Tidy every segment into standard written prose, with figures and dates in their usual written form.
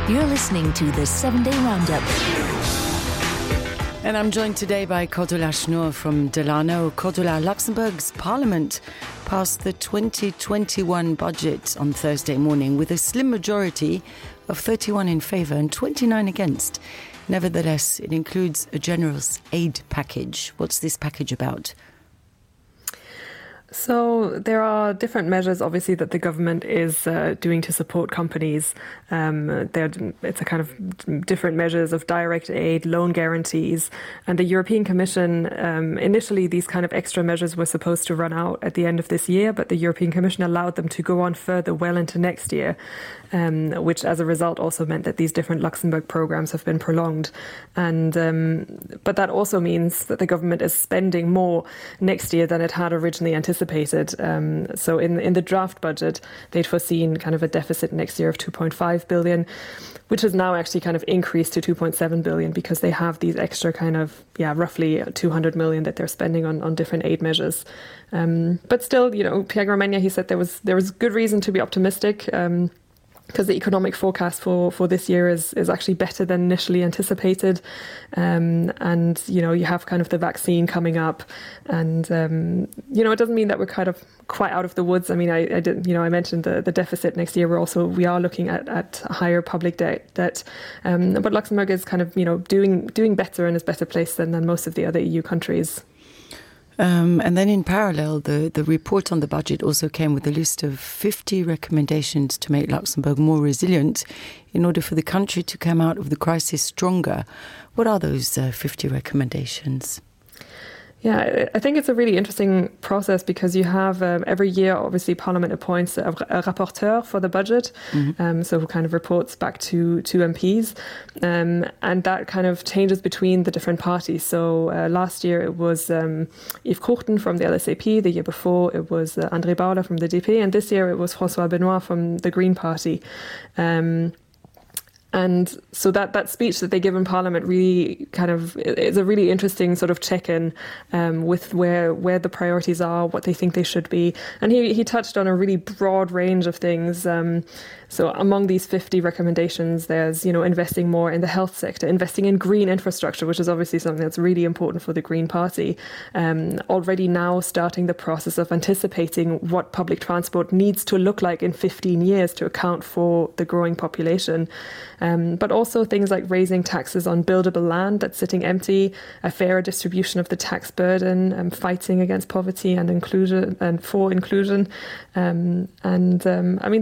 You're listening to the 7-Day Roundup. And I'm joined today by Cordula Schnur from Delano. Cordula, Luxembourg's parliament passed the 2021 budget on Thursday morning with a slim majority of 31 in favour and 29 against. Nevertheless, it includes a generous aid package. What's this package about? So there are different measures, obviously, that the government is doing to support companies. It's a kind of different measures of direct aid, loan guarantees. And the European Commission, initially, these kind of extra measures were supposed to run out at the end of this year, but the European Commission allowed them to go on further well into next year, which as a result also meant that these different Luxembourg programs have been prolonged. And but that also means that the government is spending more next year than it had originally anticipated. So in the draft budget, they'd foreseen kind of a deficit next year of 2.5 billion, which has now actually kind of increased to 2.7 billion because they have these extra kind of, roughly 200 million that they're spending on different aid measures. But still, Pierre Gramegna, he said there was good reason to be optimistic. Because the economic forecast for this year is actually better than initially anticipated. And, you have kind of the vaccine coming up. And, it doesn't mean that we're kind of quite out of the woods. I mean, I mentioned the deficit next year. We are looking at higher public debt. But Luxembourg is kind of, doing better and is better placed than most of the other EU countries. And then in parallel, the report on the budget also came with a list of 50 recommendations to make Luxembourg more resilient in order for the country to come out of the crisis stronger. What are those 50 recommendations? Yeah, I think it's a really interesting process because you have every year, obviously, Parliament appoints a rapporteur for the budget, so who kind of reports back to MPs, and that kind of changes between the different parties. So last year it was Yves Courten from the LSAP, the year before it was André Bauer from the DP, and this year it was François Benoit from the Green Party. And so that speech that they give in Parliament really kind of is a really interesting sort of check-in with where the priorities are, what they think they should be. And he touched on a really broad range of things. So among these 50 recommendations, there's, investing more in the health sector, investing in green infrastructure, which is obviously something that's really important for the Green Party. Already now starting the process of anticipating what public transport needs to look like in 15 years to account for the growing population. But also things like raising taxes on buildable land that's sitting empty, a fairer distribution of the tax burden, fighting against poverty and inclusion and for inclusion. I mean,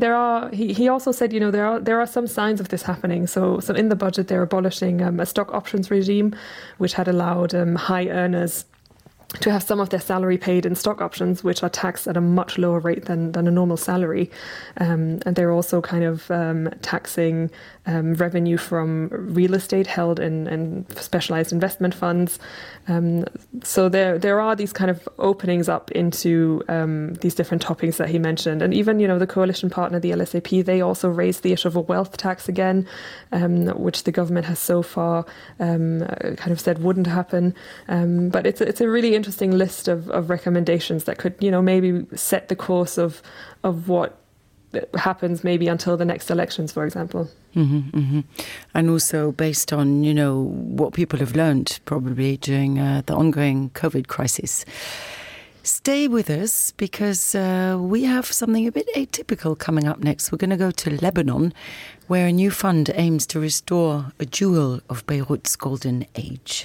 he also said, there are some signs of this happening. So in the budget, they're abolishing a stock options regime, which had allowed high earners to have some of their salary paid in stock options, which are taxed at a much lower rate than a normal salary. And they're also kind of taxing revenue from real estate held in specialized investment funds. So there are these kind of openings up into these different topics that he mentioned. And even, the coalition partner, the LSAP, they also raised the issue of a wealth tax again, which the government has so far kind of said wouldn't happen. But it's a really interesting list of recommendations that could, maybe set the course of what happens maybe until the next elections, for example. And also based on, what people have learned probably during the ongoing COVID crisis. Stay with us because we have something a bit atypical coming up next. We're going to go to Lebanon, where a new fund aims to restore a jewel of Beirut's golden age.